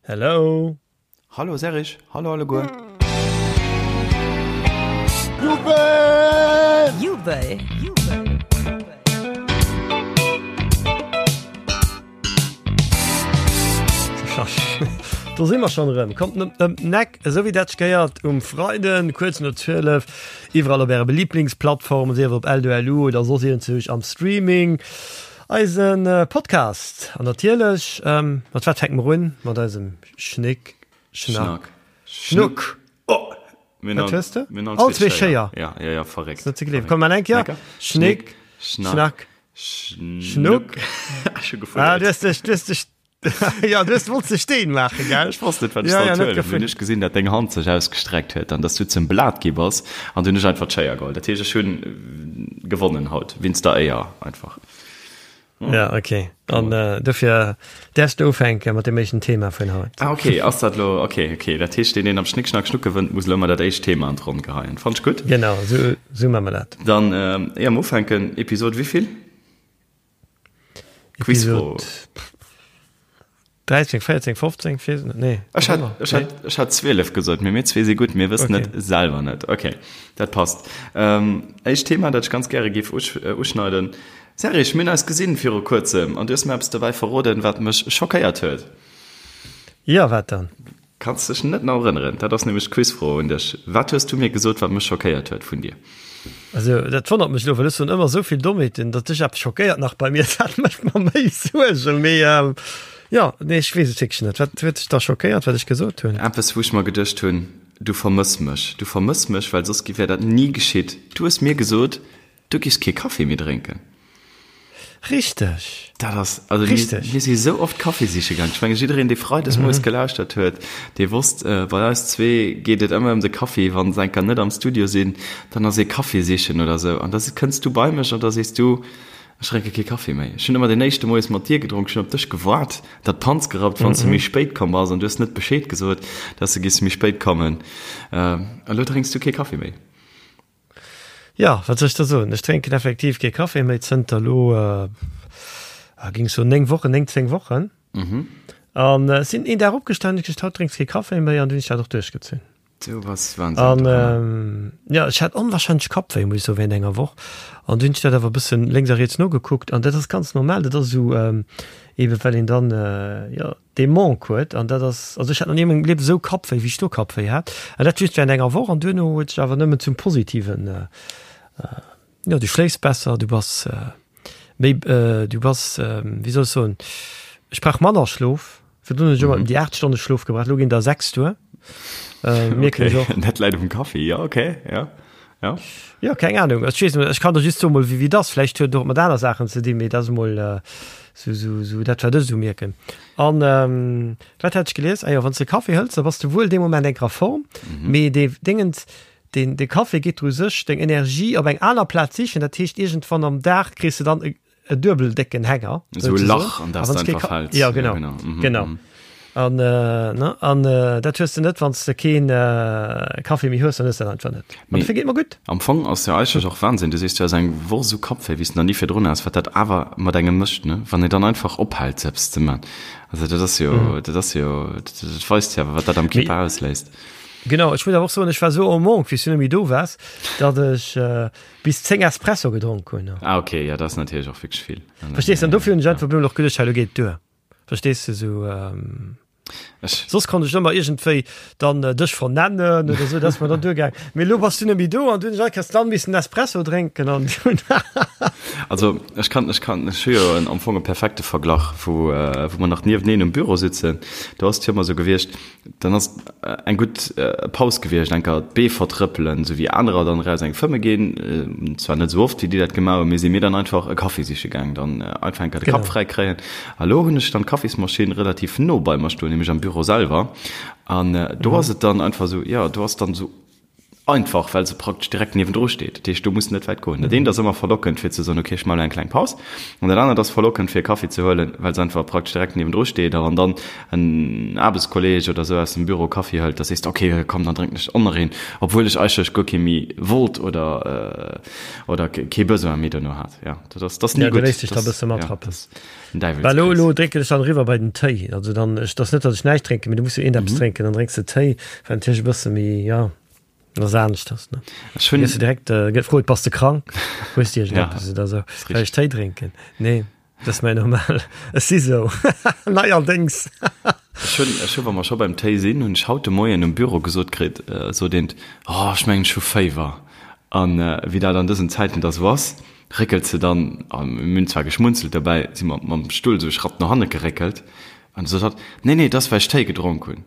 Hello. Hallo Serge, hallo alleguer. Jubel! Jubel! Do si mer schonn erëm. Kommt net ëm den Eck, esou wéi dat sech gehéiert um Freiden, kuerz no 12, iwwerall op äre Liblingsplattformen, sief op L2LU oder soss iergendzwousch am Streaming, eise Podcast. An natierlech, mat wat fänke mer un? Mat eisem Schnick, Schnack, Schnuck. Oh! Wat hues de? All zwee Schéier. Ja, ja, ja, verréckt. Net ze gleewen. Komm, mal eng Kéier. Schnick, Schnack, Schnuck. Ech hu gefuerdert. Ah, du hues dech, du hues dech, ja, du hues, wollts de Steen maachen, gell? Ech wosst net, wat ech Ja, ja, sollt net huelen. Hunn gefuerdert. ech gesinn, dat deng Hand sech ausgestreckt huet an dass du zum Blat gi bass an du hunn ech einfach d'Schéier geholl. Dat heescht, ech hunn gewonnen haut, wéinst der Éier einfach. Ja, okay. An äh, dofir däerfs du ufänke mat dem éischten Thema vun haut. Ah, okay, ass dat lo, okay, okay. Dat heescht, deen, deen am Schnick, Schnack, Schnuck gewënnt, muss lo ëmmer dat éischt Thema an d'Ronn geheien. Fannt ech gutt. Genau, sou, sou maache mer dat. Dann, äh, éier mer ufänken, Episod wéivill? Quizfro. Episod 13, 14, 15, weess net, nee. Ech hat, ech hat, ech hat 12 gesot, mee mir zwee si gutt, mir wëssen Okay. et selwer net. Okay, dat passt. Ähm, éischt Thema, dat ech ganz gäre géif usch, äh, uschneiden. Serge, mir hunn eis gesinn viru kuerzem an du hues mir eppes dobäi verroden, wat mech schockéiert huet. Jo, wat dann? Kanns dech net nach erënneren? Dat ass nämlech d'Quizfro un dech. Wat hues du mir gesot, wat mech schockéiert huet vun dir? Also, dat wonnert mech elo, well ech soen ëmmer esou vill Dommheeten, datt dech eppes schockéiert nach bei mir, dat mécht mer méi Suergen. Mee jo, nee, ech weess et wierklech net. Wat huet dech da schockéiert, wat ech gesot hunn? Eppes, wou ech mer geduecht hunn, Du vermëss mech. Du vermëss mech, well soss wär dat ni geschitt. Du hues mir gesot, Du giffs kee Kaffi méi drénken. Richteg. Dat ass, also mir, Richteg. mir si sou oft Kaffi siche gaang. Ech menge jiddereen, dee freides moies gelauschtert huet, dee wosst, bei eis zwee geet et ëmmer ëm de Kaffi. Wann se enker net am Studio sinn, dann ass ee Kaffi sichen oder sou. An da kënns du bei mech an da sees du, Ech drénke kee Kaffi méi. Ech hunn ëmmer deen éischte Moies mat dir gedronk. Ech hunn op dech gewaart, dat d'Panz gerappt, wann s du méi spéit komm bass. An du hues net Bescheed gesot, dass du giffs méi spéit kommen. Elo drénks du kee Kaffi méi. Jo, wat soll ech da soen? Ech drénken effektiv kee Café méi zënter elo, géing ech soen, 9 Wochen, 9, 10 Wochen. An ech sinn een Dag opgestanen, hunn ech gesot, haut drénks kee Café méi an du hunn ech dat och duerchgezunn. Du bass Wahnsinn. An jo, ech hat onwahrscheinlech Kappwéi, muss ech soen, während enger Woch. An du hunn ech dat awer e bëssen lénks a riets nogekuckt an dat ass ganz normal. Dat ass esou, eebe well een dann, jo, dee Manque huet an dat ass, also ech hat nach ni a mengem Liewen esou Kappwéi wéi ech do Kappwéi hat an dat just während enger Woch an duerno huet sech awer nëmmen zum Positiven, jo du schléifs besser, du bass méi, du bass, wéi soll ech soen, ech brauch manner Schlof, virdrun hunn ech ëmmer ëm déi 8 Stonne Schlof gebraucht, elo ginn der 6 duer, mierken ech och. Dat läit um Kaffi, jo okay, jo. Ja. Jo, keng Ahnung. Ech weess net, ech kann der just soen, mol wéi wéi et ass. Vläicht huet et och mat aner Saachen ze dinn, mee dat ass mol sou sou sou dat, wat ech esou mierken. An wat hat ech gelies? Ah jo, wann s de Kaffi hëls, da bass de wuel dee Moment enker a Form, mee dee Déngens, deen de Kaffi geet dru sech deng Energie op eng aner Plaz sichen. Dat heescht, iergendwann am Dag kriss de dann e e duebel décken Hänger. Esou e Lach, an dat s de einfach fäls. Ja, genau. Ja, genau. Mhm, genau. Mhm. An, äh, ne? An äh, dat hues de net, wann s de keen äh, Kaffee méi hues, dann hues de dat einfach net. An dofir geet mer gutt. Am Fong ass jo eigentlech och Wahnsinn, du sees, du has eng Woch esou Kappwéi, wéi s de nach ni virdrun has, wat dat awer mat engem mécht, ne? Wann een dann einfach ophält, sou eppes ze man. Also dat ass jo, dat ass jo, dat weist jo awer, wat dat am Kierper ausléist. Genau, ech muss awer och soen, ech war esou en manque, wéi s du net méi do waars, datt ech äh, bis 10 Espresso gedronk hunn. Ah ok, ja dat ass natierlech och wierklech vill. Verstees du? An dofir hunn ech einfach op eemol och geduecht, hei lo geet et duer. Verstees du? Sou, Ech. Soss konnt ech ëmmer iergendwéi dann dech vernennen oder sou, dat ass mer dann duergaang. Mee elo bass du net méi do an du hunn ech all Kéiers dann missen Espresso drénken an dunn. Also ech kann, ech kann, ech hu jo en am Fong e perfekte Verglach, wou, wou mer nach nieweneen um Büro sitzen. Do ass et jo ëmmer sou gewiescht, Dann ass eng gutt Paus gewiescht, enker d'Bee vertrëppelen, sou wéi anerer dann eraus eng fëmme ginn, zwar net sou oft wéi déi dat gemaach hunn, mee si mir dann einfach e Kaffi siche gaang, dann einfach enker de Kapp fräi kréien. A lo hunn ech dann d'Kaffismaschinn relativ no bei mer stoen, nämlech am Büro selwer, an do ass et dann einfach sou, jo, do ass dann sou. Einfach well se praktesch direkt niewendru steet. Dat heescht, do muss net wäit goen. Dat eent ass ëmmer verlockend fir ze soen, okay, ech maache elo eng kleng Paus. An dat anert ass verlockend fir e Kaffi ze huelen, well se einfach praktesch direkt niewendru steet. A wann dann en Aarbechtskolleeg oder esou aus dem Büro Kaffi hëlt, da sees de, okay, komm, dann drénken ech och nach een, obwuel ech eigentlech guer kee méi wollt oder oder kee Besoin méi dono hat. Jo, dat ass, dat ass ni gutt. Ja, du léiss dech da e bësse matrappen. Well elo, elo drénken ech dann eriwwer bei den Téi. Also dann, ech, dat ass net, datt ech näischt drénken, mee du muss jo iergendeppes drénken. Dann drénks de Téi, wat natierlech e bësse méi, jo, dat ass aneschters, ne? Ech hunn. Gëss du direkt gefrot, Bass de krank? Hues de iergendeppes oder esou? Well ech Téi drénken. Nee, dat ass mäi normal. Ech si sou. Neierdéngs. Ech hunn, ech hu, wa mer scho beim Téi sinn, hunn ech haut de Moien um Büro gesot kritt, sot eent, Oh, ech mengen, ech hu Féiwer. An wéi dat an dësen Zäiten da sou ass, Réckelt se dann, a mir hunn zwar geschmunzelt dobäi, si mer mam Stull esou e Schratt no hanne geréckelt, an du sot hatt, Nee, nee, et ass, well ech Téi gedronk hunn.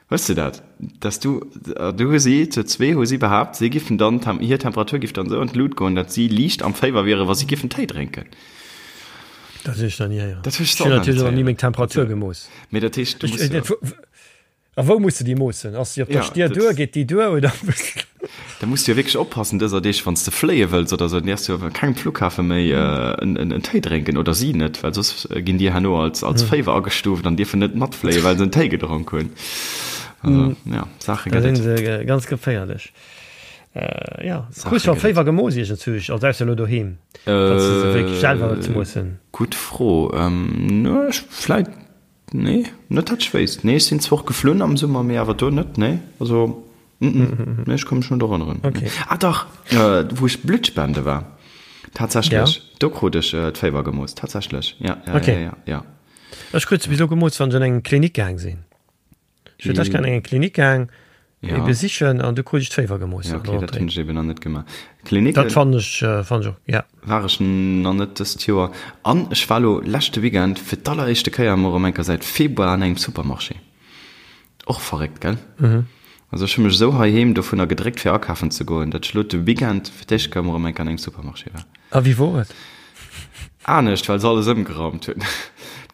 Hues de dat? Dass du, du hu si, zu zwee hu si behaapt, si giffen dann, hir Temperatur giff dann esou an d'Lut goen, datt si liicht am Féiwer wieren, wa si giffen Téi drénken. Dat hunn ech nach ni héieren. Dat hunn ech och nach net héieren. Ech hunn natierlech och nach ni meng Temperatur gemooss. Mee dat heescht, du muss jo. A wou muss de déi moossen? Ass déi op der Stier duer? Geet déi duer oder? Da muss du jo wierklech oppassen dëser Deeg, wann s de fléie wëlls oder esou, dann däerfs du jo op kengem Flughafe méi en Téi drénken oder si net, well soss ginn déi herno als als Féiwer agestuuft an dierfen net matfléien, well se en Téi gedronk hunn. Also ja, Saache gëtt et. Da sinn se ganz geféierlech. Jo, krus scho Féiwer gemooss iergendzwousch, also ausser elo doheem, datt s de se wierklech selwer ze moossen? Gutt Fro. Ech vläit Nee, net dat ech wéisst. Nee, ech sinn zwar och geflunn am Summer, mee awer do net, nee. Also, mm, nee, ech ka mech net erënneren. Okay. Ah dach, wou ech Blutt spende war, tatsächlech, ja. Do krut ech d'Féiwer gemooss, tatsächlech, ja, ja, okay. ja, ja, ja. Ech krut se bis elo gemooss, wann ech an eng Klinik gaang sinn. Ech huet lech an eng Klinik gaang ja. besichen an du krut ech d'Féiwer gemooss. Ja, okay, dat hunn ech eben nach net gemaach. Klinik dat fannen ech äh, fannen ech och, ja. War ech nach net dëst Joer. An ech war lo leschte Weekend fir d'alleréischte Kéier emol erëm eng Kéier säit Februar an engem Supermarché. Och verréckt, gell? Mhm. Also ech hu mech esou heiheem dovunner gedréckt fir akafen ze goen, datt ech lo de Weekend fir d'éischt Kéier emol erëm eng Kéier an engem Supermarché war. A wéi wor et? Anescht, well se alles ëmgeraumt hunn.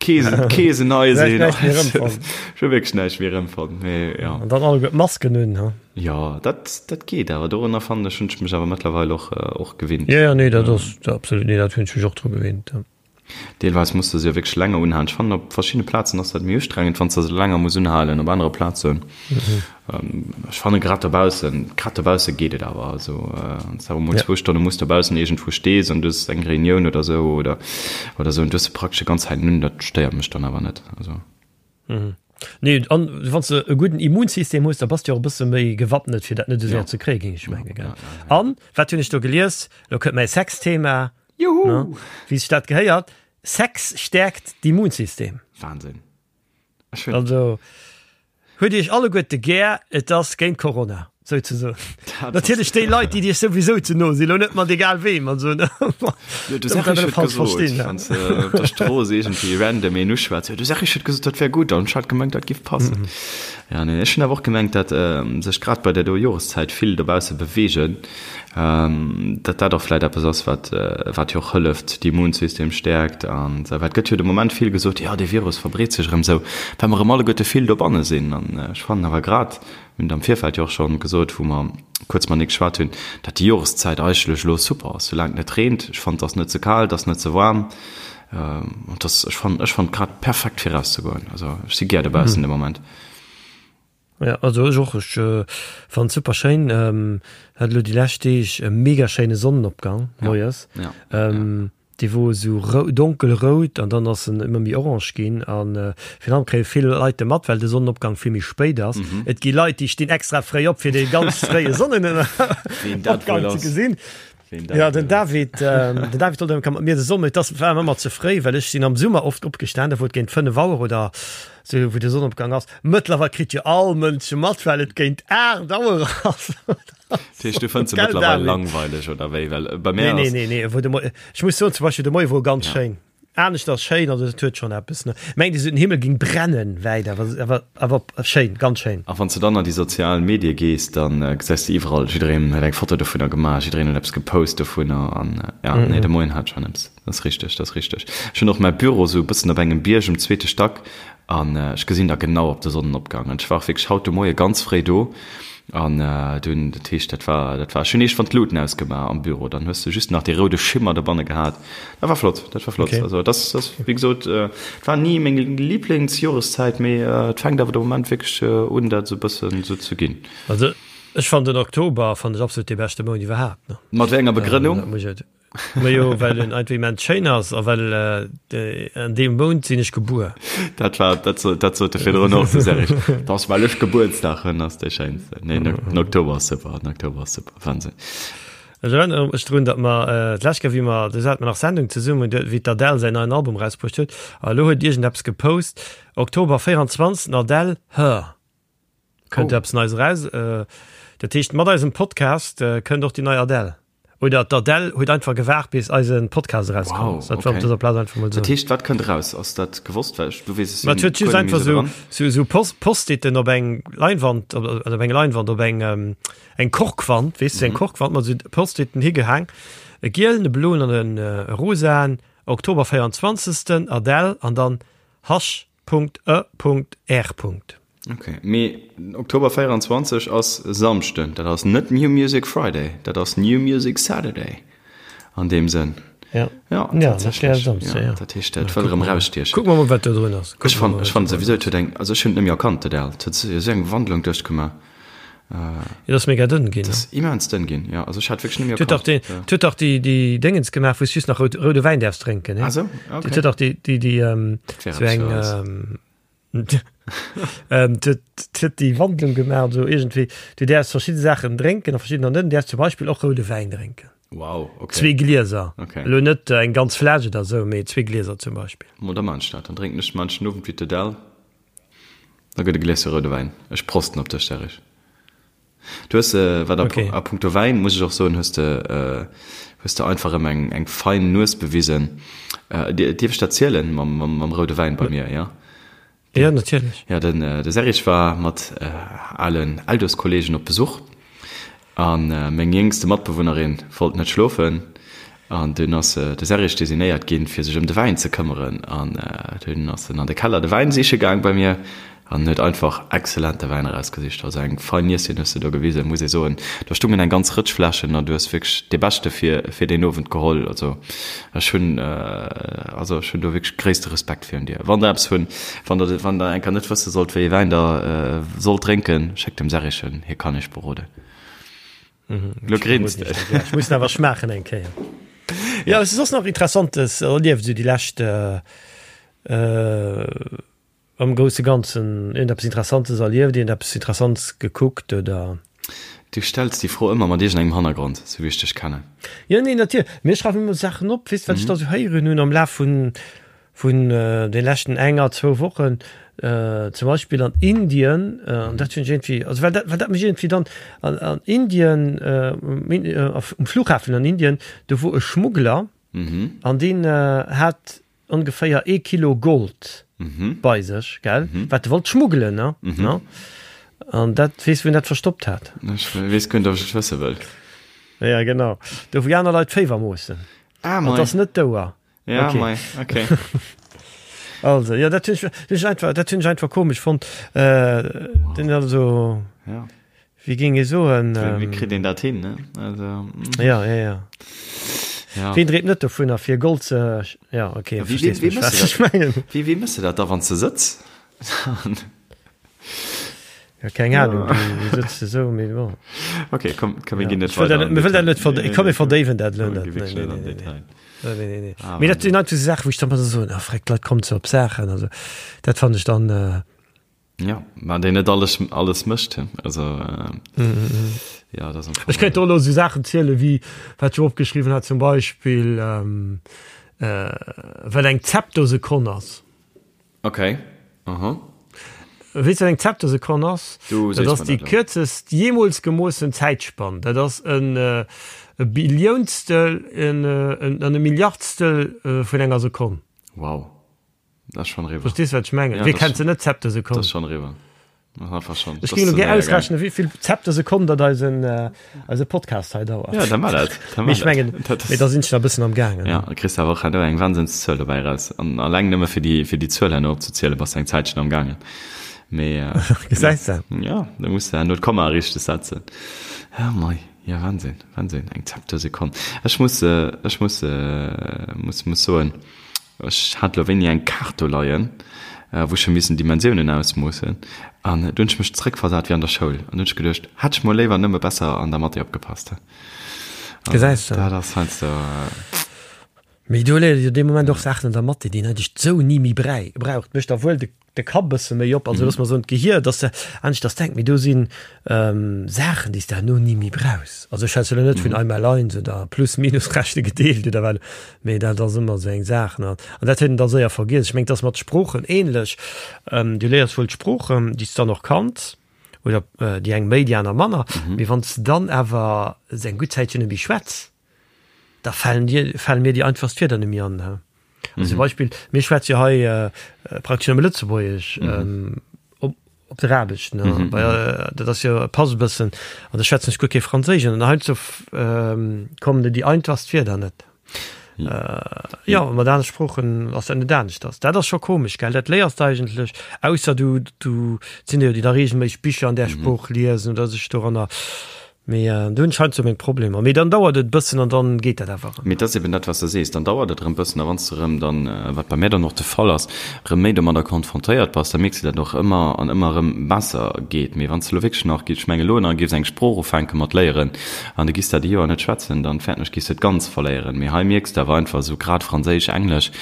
D'Keesen, d'Keesen nei sinn. Näischt méi erëmfonnt. Ech hu wierklech näischt méi erëmfonnt, mee ja. An dann alleguer d'Masken un, ha? Jo, dat, dat geet awer. Dorunner fannen ech, hunn ech mech awer mëttlerweil och, och gewinnt. Jo, jo, nee, dat ass absolut, nee, dat hunn ech mech och dru gewinnt, ja. Deelweis muss de se jo wierklech länger unhalen. Ech fannen, op verschiddene Plazen ass dat méi ustrengend, wann s de se länger muss unhalen. Op anere Plazen, ech fanne grad dobaussen, grad dobausse geet et awer. Also wann s de awer emol zwou Stonne muss dobaussen iergendwou stees an du hues eng Reunioun oder esou oder oder esou an du hues se praktesch déi ganz Zäit un, dat stéiert mech dann awer net. Also. Nee, an wann s de e gudden Immunsystem hues, da bass de jo och e bësse méi gewappnet, fir dat net esou séier ze kréien, géing ech mengen, gell? An wat hunn ech do gelies? Elo kënnt mäi Sexthema. Juhu! Wéi sech dat gehéiert, Sex stäerkt d'Immunsystem. Wahnsinn. Also huet Iech alleguerte gär, et ass géint Corona, souzesoen. Natierlech déi Leit, déi Iech souwisou ze no sinn, lo net mat egal weem an esou. Jo, du sag, ech huet gesot, wann s de op der Strooss iergendwéi random een uschwätz, jo, du sag, ech huet gesot, dat wär gutt, an ech hat gemengt, dat giff passen. Ja, nee, ech hunn awer och gemengt, dat sech grad bei där do Joreszäit vill dobausse beweegen, datt dat och vläit eppes ass, wat, wat jo och hëlleft, d'Immunsystem stäerkt an esou. Well et gëtt jo de Moment vill gesot, jo, dee Virus verbreet sech erëm esou, well mer erëm alleguerte vill dobanne sinn. An ech fannen awer grad, mir hunn et am Virfeld jo och scho gesot, wou mer kuerz matenee geschwat hunn, datt déi Joreszäit eigentlech elo super ass, soulaang et net reent. Ech fannen, et ass net ze kal, et ass net ze waarm. An et ass, ech fannen, ech fannen et grad perfekt fir erauszegoen. Also ech si gär dobaussen de Moment. Ja, also ech och, ech fannen et super schéin. Hat elo déi lescht Deeg e mega schéine Sonnenopgang moies. Ja, ja. Dee wor esou donkel rout an dann ass en ëmmer méi orange ginn. An virun allem kréie vill Leit de mat, well de Sonnenopgang vill méi spéit ass. Et gi Leit, déi stinn extra fréi op, fir dee ganz fréie Sonnenopgang ze gesinn. Ja, den David, den David wollt ëmmer mat mir de Sommer, et ass war ëmmer ze fréi, well ech sinn am Summer oft opgestan, da wor et géint 5 Auer oder sou, wou de Sonnenopgang ass. Mëttlerweil kritt jo all Mënsch mat, well et géint 8 Auer ass. Dat heescht, du fënns se mëttlerweil langweileg oder wéi? Well bei mär ass. Nee, nee, nee, wou de Moien, ech muss soen, zum Beispill de Moie wor ganz schéin. Anescht ass schéin, also et huet schonn eppes, ne. Mengt esou den Himmel ging brennen wäit, awer, awer, awer schéin, ganz schéin. A wann s de dann an déi sozial Medie gees, da gesäis de iwwerall, jiddereen huet eng Foto dovunner gemaach, jiddereen huet eppes gepost dovunner an ja, nee, de Moien hat schonn eppes. Dat ass richteg, dat ass richteg. Ech hunn och mäi Büro esou e bëssen op engem Bierg um zweete Stack an ech gesinn da genau op de Sonnenopgang. An ech war och wierklech haut de Moie ganz fréi do. An dunn, dat heescht, dat war, dat war, ech hunn iergendwann d'Luuten ausgemaach am Büro, dann hues de just nach dee roude Schimmer dobanne gehat. Dat war flott, dat war flott. Okay. Also dat ass, wéi gesot, et war ni meng Liblingsjoreszäit, mee et fänkt awer de Moment wierklech un, dat esou e bëssen esou ze ginn. Also ech fannen den Oktober fannen ech absolut dee beschte Mount iwwerhaapt, ne. Mat wéi enger Begrënnung? Dat muss ech, Majo, well en einfach immens schéin ass a well an deem Mount sinn ech gebuer. Dat war, dat sot, dat sot de virdrun och, de Serge. Dat ass, well ech Gebuertsdag hunn, ass dee schéinsten. Nee, den Oktober ass super, den Oktober ass super, Wahnsinn. Ech erënnere mech drun, datt mer d'lescht Kéier, wéi mer, do hate mer nach Sendung zesummen, do, wéi d'Adele säin neien Album erausbruecht huet, a elo huet iergendeppes gepost, Oktober 24, Adele, Her. Kënnt eppes Neies eraus. Dat heescht, mat eisem Podcast kënnt och déi nei Adele. Oder d'Adele huet einfach gewaart, bis eise Podcast erauskomm ass. Dat war op dëser Plaz einfach mol soen. Dat heescht, wat kënnt eraus? Ass dat gewosst? Well ech, du weess, ech sinn guer net méi esou dran. Sou esou Post-iten op eng Leinwand, op eng Leinwand, op eng eng Korkwand, weess du, eng Korkwand mat esou Post-iten higehaang. E gielen, e bloen an e rosaen. Oktober 24. Adele an dann Hasch. Punkt e Punkt R Punkt. Ok, mee Oktober 24 ass e Samschden, dat ass net New Music Friday, dat ass New Music Saturday an deem Sënn. Ja, ja, tatsächlech. Ja, ja. Dat heescht, dat wëll erëm erausstiechen. Kucke mer mol, wat do drun ass. Ech fannen, ech fannen souwisou, et huet eng, also ech hunn et net méi erkannt, d'Adele. Et huet esou eng Wandlung duerchgemaach. Et ass mega dënn ginn. Et ass immens dënn ginn, jo. Also ech hat wierklech net méi erkannt. Et huet dach déi, déi Déngens gemaach, wou s just nach rout, roude Wäin däerfs drénken, ne? Ah sou, ok. Et huet dach déi, déi, déi, sou eng. Huet déi Wandlung gemaach esou iergendwéi, du däerfs verschidde Saachen drénken a verschiddener net. Du däerfs zum Beispill och roude Wäin drénken. Wow, okay. Zwee Glieser. Okay. Elo net eng ganz Fläsch oder esou, mee zwee Glieser zum Beispill. Mo da maan ech dat. Dann drénken ech manchen Owend wéi d'Adele. Da gëtt e Gläschen roude Wäin. Ech prosten op dech, Serge. Du hues, wat a punkto Wäin, muss ech och soen, hues de, hues de einfach erëm eng, eng fein Nues bewisen. Dierf ech dat zielen mam, mam roude Wäin bei mir, jo? Jo, natierlech. Jo, den, de Serge war mat alen Eldos-Kollegen op Besuch a meng jéngste Matbewunnerin wollt net schlofen an dunn ass de Serge designéiert ginn, fir sech ëm de Wäin ze këmmeren an dunn ass en an de Keller de Wäin siche gaang bei mir An huet einfach exzellente Wäin erausgesicht. Also eng fein Nieschen hues de do gewisen, muss ee soen. Do stungen eng ganz Rëtsch Fläschen an du hues wierklech dee beschte fir fir deen Owend geholl. Also ech hunn also ech hunn do wierklech gréisste Respekt virun dir. Wann der eppes hunn, wann der wann der eng Kéier net wësse sollt wéi ee Wäin der sollt drénken, schéckt dem Serrichen, hie kann iech beroden. Lo grinst de. Ech muss en awer schmaachen eng Kéier. Jo, et ass soss nach Interessantes erlieft esou déi lescht. Am grousse Ganzen iergendeppes Interessantes erlieft, iergendeppes Interessantes gekuckt oder? Du stells déi Fro ëmmer mat iergendengem Hannergrond, sou wéi ech dech kennen. Jo, nee, natierlech. Mee ech schreiwen ëmmer Saachen op, weess, wat ech da sou héieren hunn am Laf vun, vun de leschten enger, zwou Wochen. Zum Beispill an Indien, an dat hunn ech iergendwéi, also well dat, well dat mech iergendwéi dann, an, an Indien, um Flughafen an Indien, do wor e Schmuggler an deen hat ongeféier ee Kilo Gold bei sech, gell, wat e wollt schmuggelen, ne? Ne? An dat, weess wou en dat verstoppt hat? Ech weess guer net, ob ech et wësse wëll. Ja, genau. Do wou aner Leit d'Féiwer moossen. Ah, mei. An et ass net d'Ouer. Ja, okay. mei, okay. Also, ja, dat hunn ech, dat hunn ech einfach, dat hunn ech einfach komesch fonnt. Äh, wow. Den also. Ja. Wéi géing ee soen? Wéi kritt een dat hin, ne? Also, mm. Ja, ja, ja. Ja. Ween dreemt net dovunner, fir Gold ze. Ja, okay, ja, wéi, wéi, wéi mëss du dat? Wéi, wéi mëss du dat da, wann s de sëtz? Ja, keng Ahnung, du sëtz de sou, mee bon. Okay, komm, komm, mir ja. ginn net weider. Mir wëll dat net verdéiwen. Komm, mir verdéiwen dat elo net. Nee, nee, nee, nee. Nee, nee, nee. Ah, mee dat sinn einfach sou Saachen, wou ech dann ëmmer sou soen, ah, freck, d'Leit kommen ze op Saachen. Also, dat fannen ech dann. Äh, Ja, mä deen net alles, alles mécht. Also, äh, mm -hmm. ja, dat Ech kéint do elo sou Saachen ziele wéi wat ech opgeschriwwen hat, zum Beispill ähm, äh, wat eng Zeptosekonn ass. Okay. Aha. Weess du, wat eng Zeptosekonn ass? Du Dat ass déi kierzest jeemools gemoossen Zäitspann. Dat ass en e Billiounstel en, en, an e Milliardstel vun enger Sekonn. Wow. Dat ass schonn eriwwer. Verstees wat ech mengen? Ja, Wie kennt se net Zeptosekonn? Dat ass schonn eriwwer. Dat ass einfach schonn. Ech géing elo gär ausrechnen, wéi vill Zeptosekonn dat eisen, eise Podcast hei dauert. Ja, da mar dat. Da Mee ech mengen, mee da sinn ech nach e bëssen am gaangen. Ja, da kriss de awer och herno eng Wahnsinnszuel dobäi eraus. An alleng nëmme fir déi, fir déi Zuel herno opzezielen, bass de eng Zäitchen am gaangen. Mee Gesäis de? Ja, da muss de herno d'Komma richteg setzen. Ja, mei, ja, Wahnsinn, Wahnsinn, eng Zeptosekonn. Ech muss, ech muss, muss, muss soen, ech hat elo wéini eng Kaart do leien, wou ech hu missen Dimensiounen ausmoossen an do hunn ech mech zréckversat wéi an der Schoul an do hunn ech geduecht, hätt ech mol léiwer nëmme besser an der Mathé opgepasst. Gesäis de? Dat ass heiansdo. Mee do léiert ee jo dee Moment och Saachen an der Mathé, déi een eigentlech sou ni méi braucht. Mécht da wuel de de Kapp e bësse méi op, also looss mer soen d'Gehier, dass de aneschters denkt, mee do si Saachen, déi s de herno ni méi brauchs. Also ech schwätze elo net vun einmal eins oder plus minus rechne gedeelt oder wat, mee dat ass ëmmer esou eng Saach, ne. An dat huet een da séier vergiess. Ech mengen, et ass mat Sproochen ähnlech, du léiers wuel d'Sproochen, déi s de dann och kanns, oder déi eng méi, déi aner manner, mee wann s de dann awer eng gutt Zäitchen net méi schwätz, da falen dir, fale mir déi einfachst Wierder net méi an. Also mhm. zum Beispill, mir schwätze jo hei äh, praktesch nëmme Lëtzebuergesch mhm. ähm, op, op der Aarbecht. Ne? Mhm. Weil, äh, dat ass jo pass e bëssen an da schwätzen ech guer kee Franséisch an heiansdo ähm, kommen dir déi einfachst Wierder net. Mhm. Äh, ja, mat anere Sproochen ass dat net aneschters. Dat ass scho komesch, gell? Dat léiers de eigentlech, ausser du, du sinn jo déi da regelméisseg Bicher an där mhm. Sprooch liesen oder sech doranner Mee do hunn ech heiansdo meng Problemer. Mee dann dauert et e bëssen an dann geet dat awer erëm. Mee et ass eben dat, wat s de sees, dann dauert et erëm bëssen a wann s de erëm dann, wat bei mär dann och de Fall ass, erëm méi domadder konfrontéiert bass, da mierks de dat och ëmmer an ëmmer erëm besser geet. Mee wann s de elo wierklech nach, ech mengen elo nach géifs eng Sprooch ufänke mat léieren an du giss dat e Joer net schwätzen, dann fäerten ech, giss de et ganz verléieren. Mee hei mierks de awer einfach esou grad Franséisch, Englesch,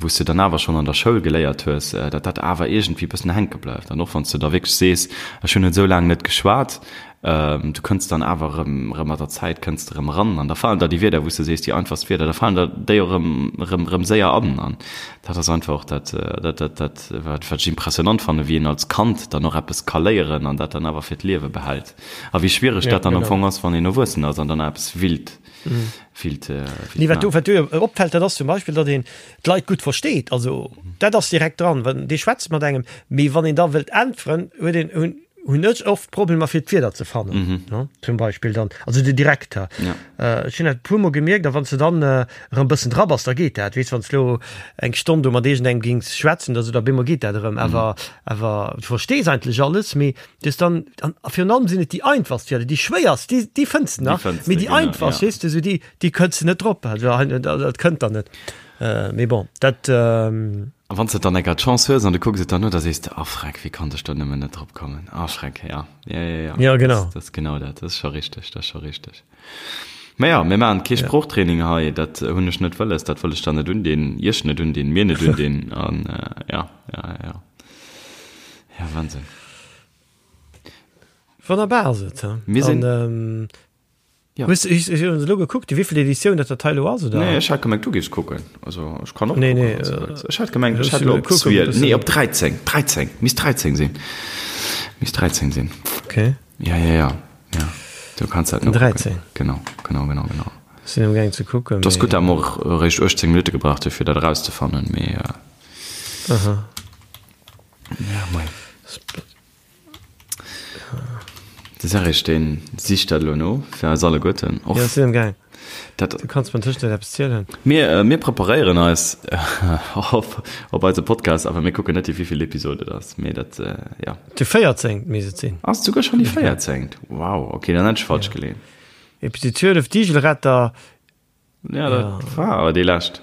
wou s de dann awer schonn an der Schoul geléiert hues, datt dat awer iergendwéi bëssen hänke bleift. An och wann s de da wierklech sees, ech hunn et esou laang net geschwat, Du kënns dann awer erëm, erëm mat der Zäit kënns de erëm eran an da falen der déi Wierder, wou s de sees, déi einfachst Wierder, da falen der déi och erëm, erëm, erëm séier an. An dat ass einfach och dat, dat, dat, dat, wat, wat ech impressionant fannen, wéi een als Kand dann och eppes ka léieren an dat dann awer fir d'Liewe behält. A wéi schwiereg dat dann am Fong ass, wann een erwuessen ass an dann eppes willt, willt, willt Nee, wat do, wat do jo opfält, dat ass zum Beispill, datt een d'Leit gutt versteet. Also dat ass direkt dran, wann dee schwätzt mat engem, mee wann een da wëllt äntweren, huet een, hunn, hunn ech oft Problemer fir d'Wierder ze fannen, mm -hmm. zum Beispill dann also de Direkter ja. äh, ech hunn dat puer mol gemierkt, a wann du dann äh, erëm bëssen dra bass, da geet dat weess wann du lo eng Stonn do mat iergendengem gings schwätzen, da so da bemol geet dat erëm, awer mm. awer du verstees eigentlech alles, mee dus dann an virun allem sinn et déi einfachst Wierder, déi schwéierst, déi déi fënns du nach, mee déi einfachst, ja. weess du, so déi déi kënns du net drop, also dat kënnt dann net. Äh, mee bon, dat ähm, A wann s de dann enker d'Chance hues an du kucks et dann no, da sees de, Ah Freck, wéi konnt ech do nëmmen net drop kommen? Ah Schreck, ja. Ja, ja, ja. Ja, genau. Dat ass genau dat. Dat ass scho richteg, dat ass scho richteg. Mä ja, mir maachen kee Sproochtraining hei, dat hunn ech net wëlles, dat wëll ech der net undinn, iech net undinn, mir net undinn. An ja, ja, ja. Ja, Wahnsinn. Wonnerbar ass et, he? Mir sinn. Ja. Hues du elo gekuckt, déi wéivill Editioun dat dat hei elo ass, oder? Nee, ech hat gemengt, du géifs kucken. Also, ech kann och nee, kucken. Nee, äh, ech hat gemengt, ech hat elo op 12, nee, op 13, 13, misst 13 sinn. Misst 13 sinn. Okay. Ja, ja, ja, ja. Du kanns dat no 13. Genau, genau, genau, genau. Sinn am gaang ze kucken. Dat ass gutt, dat mer och eréischt 18 Minutte gebraucht hu fir dat erauszefannen, mee. Äh, Aha. Ja, mei. De Serge deen sicht dat elo no fir eis alleguerten. Och ja, sinn am gaang. Dat, du kanns mir tëschent eppes zielen. Mir, äh, mir preparéieren eis op, op eise Podcast, awer mir kucken net, déi wéivill Episode et ass. Mee dat, äh, ja. Déi 14. misst et sinn. Ass et souguer schonn déi 14.? Wow, okay, dann hätt ech falsch ja. geleeën. Episode 12, Digelretter. Ja, dat ja. war awer déi lescht.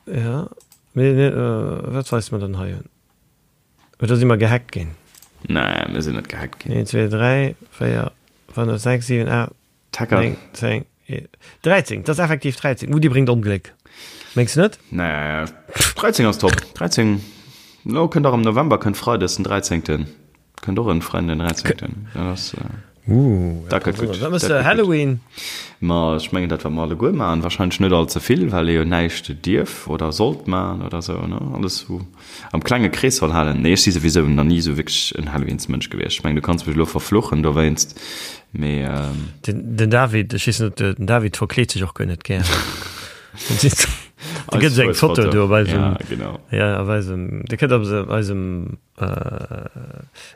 Ja, mee, nee, äh, wat weist mer dann hei un? Oder si mer gehackt ginn? Nee, mir sinn net gehackt ginn. 1, 2, 3, 4, 5, 6, 7, 8, 9, 10, 13. Dat ass effektiv 13. Uh, déi bréngt Ongléck. Mengs du net? Nee, 13 ass top. 13, lo kënnt och am November kënnt Freides den 13. Kënnt och en Freiden den 13. Dat ass, Uh, dat gëtt gutt. Wat mëss de Halloween? Ma ech mengen dat wat mer alleguer maachen, wahrscheinlech net all ze vill, well ee jo näischt dierf oder sollt maachen oder sou, ne? Alles sou am klenge Krees soll halen. Nee, ech si souwisou nach ni sou wierklech en Halloweensmënsch gewiescht. Ech mengen du kanns mech elo verfluchen dowéinst, mee. Den, den David, ech weess net, den David verkleet sech och guer net gär. Do gëtt et eng Foto do op eisem, ja, genau. Ja, op eisem, déi kënnt op eisem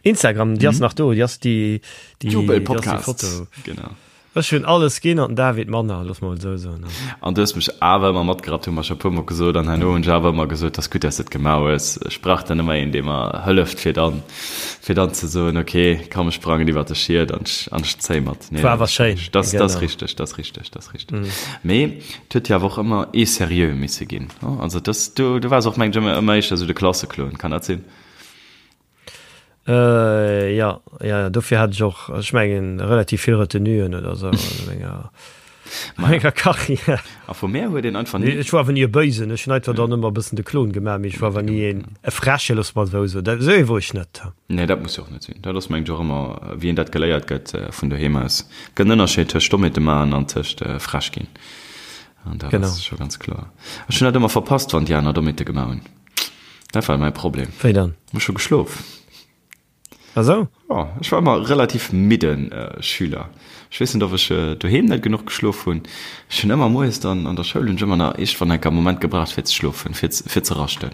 Instagram, déi ass nach do, déi ass déi, déi, Jubel Podcast. Genau. Ech hunn alles ginn an den David manner, looss mer mol esou soen. An du hues mech awer ëmmer matgerappt, hu mer scho puer mol gesot. An herno hunn ech awer ëmmer gesot, 't ass gutt, dass de et gemaach hues. Ech brauch dann ëmmer een, dee mer hëlleft, fir dann, fir dann ze soen, ok, komm, ech sprangen iwwert de Schiet an ech, an ech zéi mat. Nee, War awer schéin. Dat, dat ass richteg, dat ass richteg, dat ass richteg. Mee et huet jo awer och ëmmer ee seriö misse ginn. Also dass, du, du waars och, mengen ech, ëmmer, ëmmer éischter esou de Klasseklon, kann dat sinn? Äh, ja, ja, ja, dofir hat ech och, ech mengen, relativ vill Retenuen oder sou an menger, menger Karriär. A vu mär huet een einfach ni. Ech war awer ni e Bëisen, ech hunn einfach dann ëmmer e bëssen de Klon gemaach, mee ech war awer ni een e Freche, loosse mer et esou soen. Dat, esou ee wor ech net. Nee, dat muss jo och net sinn. Dat ass, mengen ech, och ëmmer, wéi een dat geléiert gëtt vun doheem aus. Et gëtt en Ënnerscheed tëscht Dommheete maachen an tëscht frech ginn. An dat ass scho ganz kloer. Ech hunn dat ëmmer verpasst, wann déi aner Dommheete gemaach hunn. Dat war mäi Problem. Wéi dann? Ech hu geschlof. Ah sou? Jo, ech war ëmmer relativ midde Schüler. Ech weess net, ob ech doheem net genuch geschlof hunn. Ech hunn ëmmer moies dann an der Schoul hunn ech ëmmer nach iergendwann enker e Moment gebraucht fir ze schlofen, fir fir ze raschten.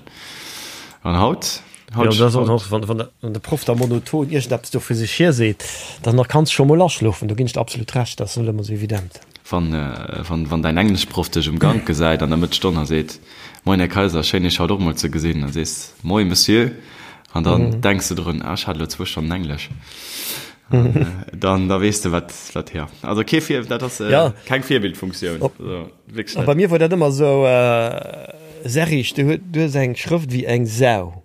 An haut, haut, Jo, dat ass och nach, wann wann de Proff da monoton iergendeppes do vu sech hier seet, dann da kanns scho mol aschlofen. Do ginn ech der absolut Recht, dat ass net ëmmer sou evident. Wann wann wann däin Engleschproff dech um Gank gesäit an der Mëttsstonn a seet, Moin Här Kaiser, schéin Iech haut och mol ze gesinn. Dann sees Moin Monsieur an dann denks de drun, ah ech hat elo zwou Stonnen Englesch. An dann da weess de wat wat jo. Also kee Vir dat ass keng Virbildfunktioun. Also wierklech net. Bei mir wor dat ëmmer esou, Serrig, du hues eng Schrëft wéi eng Sau.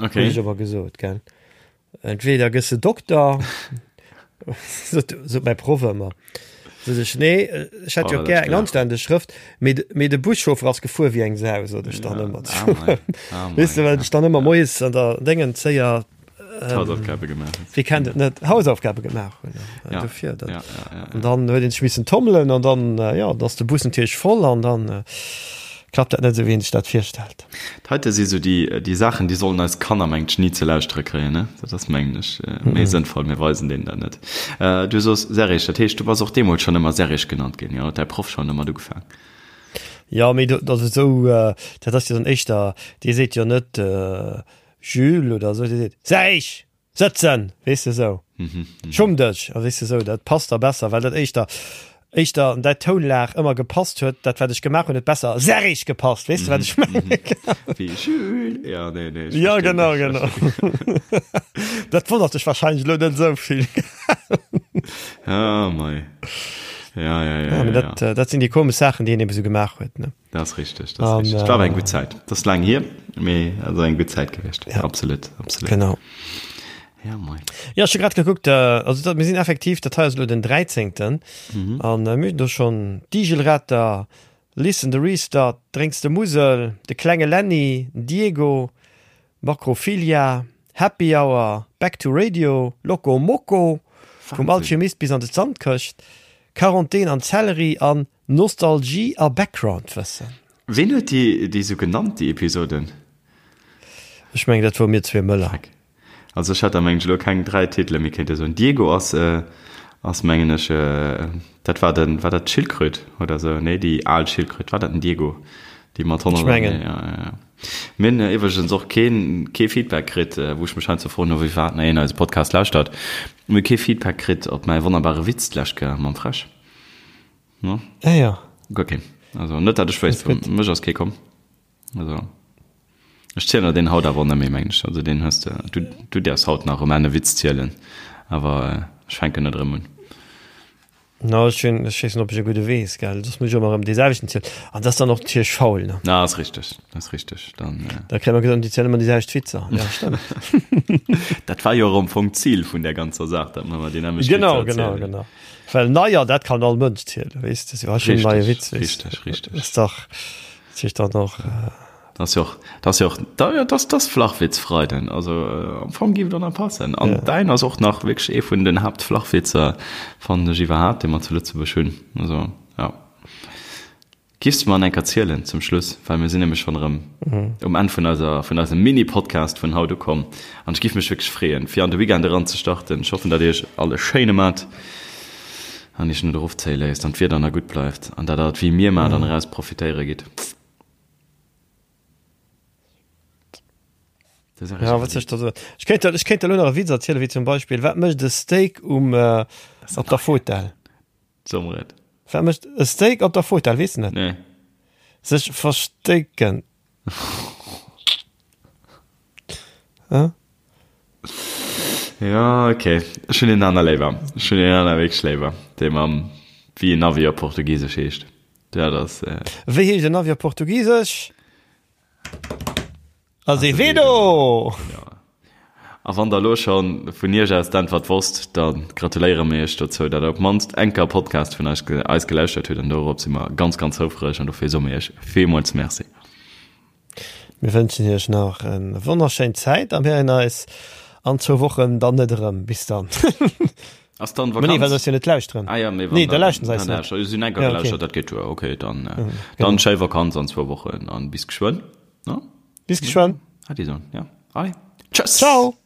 Okay. Hunn ech awer gesot, gell. Entweder gëss de Dokter, sot, sot mäi Proff ëmmer. Sot ech, nee, ech hätt jo oh, gär eng anständeg Schrëft, mee, mee de Buschauffer ass gefuer wéi eng Sau, sot ech dann ëmmer. Ah, mei. Ah, mei, Weess de, well ech dann ëmmer moies an der Déngen zéier ähm, Hausaufgabe gemaach. Wie kennt et net Hausaufgabe gemaach hunn. Ja. Dofir, dat, ja, ja, ja, ja. An dann huet een sech missen tommelen an dann äh, ja, dass de Bus natierlech voll an dann äh, klappt dat net esou wéi een sech dat virstellt. Dat heite si sou déi, déi Saachen, déi sollen eis Kanner, mengt ech, ni ze lauschtere kréien, ne? Dat ass, mengen ech, méi sënnvoll, mir weisen deenen dat net. Du sos Serrig, dat heescht, du bass och deemools schonn ëmmer Serrig genannt ginn, jo? Huet däi Proff schonn domat ugefaang? Jo, mee dat ass esou, dat ass jo dann éischter, dee seet jo net Jules oder esou, dee seet Serrig! Sëtzen, weess de sou. Schumm dech, a weess de sou, dat passt da besser, well dat éischter, éischter an däi Tounlag ëmmer gepasst huet, dat wat ech gemaach hunn, huet besser serrig gepasst, weess de wat ech mengen? Wéi Jules, ja, nee, nee, ech Ja, verstinn genau, dech. genau. Dat wonnert dech wahrscheinlech elo net esou vill. Ah, mei. Ja, ja, ja, Ja, mee ja, dat, dat sinn déi komesch Saachen, déi een ebe sou gemaach huet, ne? Dat ass richteg, dat ass richteg. Et war awer eng gutt Zäit. Dat ass laang hier, mee et ass eng gutt Zäit gewiescht. Ja. Absolut, absolut. Genau. Ja, moin. Ja, ech hu grad gekuckt, also dat, mir sinn effektiv, dat hei ass elo den 13. Mhm. An mir hunn do schonn d'Igelretter, Listen the Restart, Drénks de Musel, de klenge Lenny, den Diego, Makrophilia, Happy Hour, Back to Radio, Loco Moco, vum Alchemist bis an de Sandkëscht, Quarantän an Zellerie an Nostalgie a Backgroundwëssen. Ween huet déi déi sou genannt, déi Episoden? Ech mengen dat wor mir zwee Mëller. Dreck. Also ech hätt der mengen ech elo keng 3 Titele méi kéinte soen. Diego ass ass mengen ech dat war den war dat d'Schildkröt oder sou? Nee déi al Schildkröt, war dat den Diego? Déi mat 100 Ech mengen. Ja, ja, ja. Mir hunn iwwregens och keen kee Feedback kritt, wou ech mech heiansdo froen, no wéi wat nach een eise Podcast lauschtert. Mir hu kee Feedback kritt op mäi wonnerbare Witz d'lescht Kéier mam Fräsch. No? Ah ja. Guer keen. Also net dat ech wéisst, Gutt. mech ass kee komm. Also ech zielen der deen haut awer och net méi, mengen ech. Also deen hues de, du, du däerfs haut nach erëm en Witz zielen, awer ech fänken net erëm un. No, ech hunn, ech weess net, ob ech e gudde weess, gell. Soss muss ech ëmmer erëm dee selwechten zielen. An dat ass dann och natierlech faul, ne? Na, ass richteg, ass richteg. Dann, äh. Da kréie mer gesot, déi zielen ëmmer déi selwecht Witzer. Ja, stëmmt. Dat war jo och am Fong d'Zil vun där ganzer Saach, datt mer ëmmer déi nämmlecht Witzer Genau, genau, erzielen. genau. Well neier, dat kann all Mënsch zielen, weess de, sou, ech hunn en neie Richteg, Witz, weess de. richteg, richteg. Ass dach, dat heescht dann och. Dat ass jo och, dat ass jo och, da, ja, dat ass Flachwitzfreiden. Also am Fong géif et och nach passen. An däin ass och nach wierklech ee vun den Haaptflachwitzer, fannen ech iwwerhaapt, dee mer zu Lëtzebuerg hunn. Also, ja. Giffs de mer en enker zielen zum Schluss, well mir sinn nämlech schonn erëm um Enn vun eiser, vun eisem Mini-Podcast vun haut ukomm. An ech giff mech wierklech freeën, fir an de Weekend eran ze starten. Ech hoffen, datt Dir iech all e schéine mat an iech net erofzéie léisst an d'Wieder nach gutt bleift an datt Der et wéi mir maacht an eraus profitéiere gitt. Ja, wat soll ech da soen? Ech kéint der, ech kéint der elo nach e Witz erzielen, wéi zum Beispill, wat mécht e Steak um, op der Fotell? So mer et. Wat mécht e Steak op der Fotell? Weess de net? Nee. Sech verstecken. Hä? Ja, okay. Ech hunn een aner léiwer. Ech hunn een aner wierklech léiwer. Dee mam, wéi en Navi op Portugisesch heescht. Dat ass. Wéi heescht en Navi op Portugisesch? Azevedo! Ja. A wann der elo scho vun iech aus d'Äntwert wosst, da gratuléiere mir iech dozou, datt der op d'mannst eng Kéier e Podcast vun eis eis gelauschtert hutt. An dorop si mer ganz, ganz houfreg an dofir soe mir iech villmools Merci. Mir wënschen iech nach en wonnerschéin Zäit a mir héieren eis an zwou Wochen dann net erëm. Bis dann. Ass dann Vakanz? Nee, well se eis jo net lauschteren. Ah ja, mee wann Nee, da lauschteren se eis net. Si hunn eng Kéier gelauschtert, dat geet duer. Okay, dann dann schéi Vakanz an zwou Wochen an bis geschwënn. Bis geschwënn. Hat Dir soen, ja. Allez, tschëss! Ciao!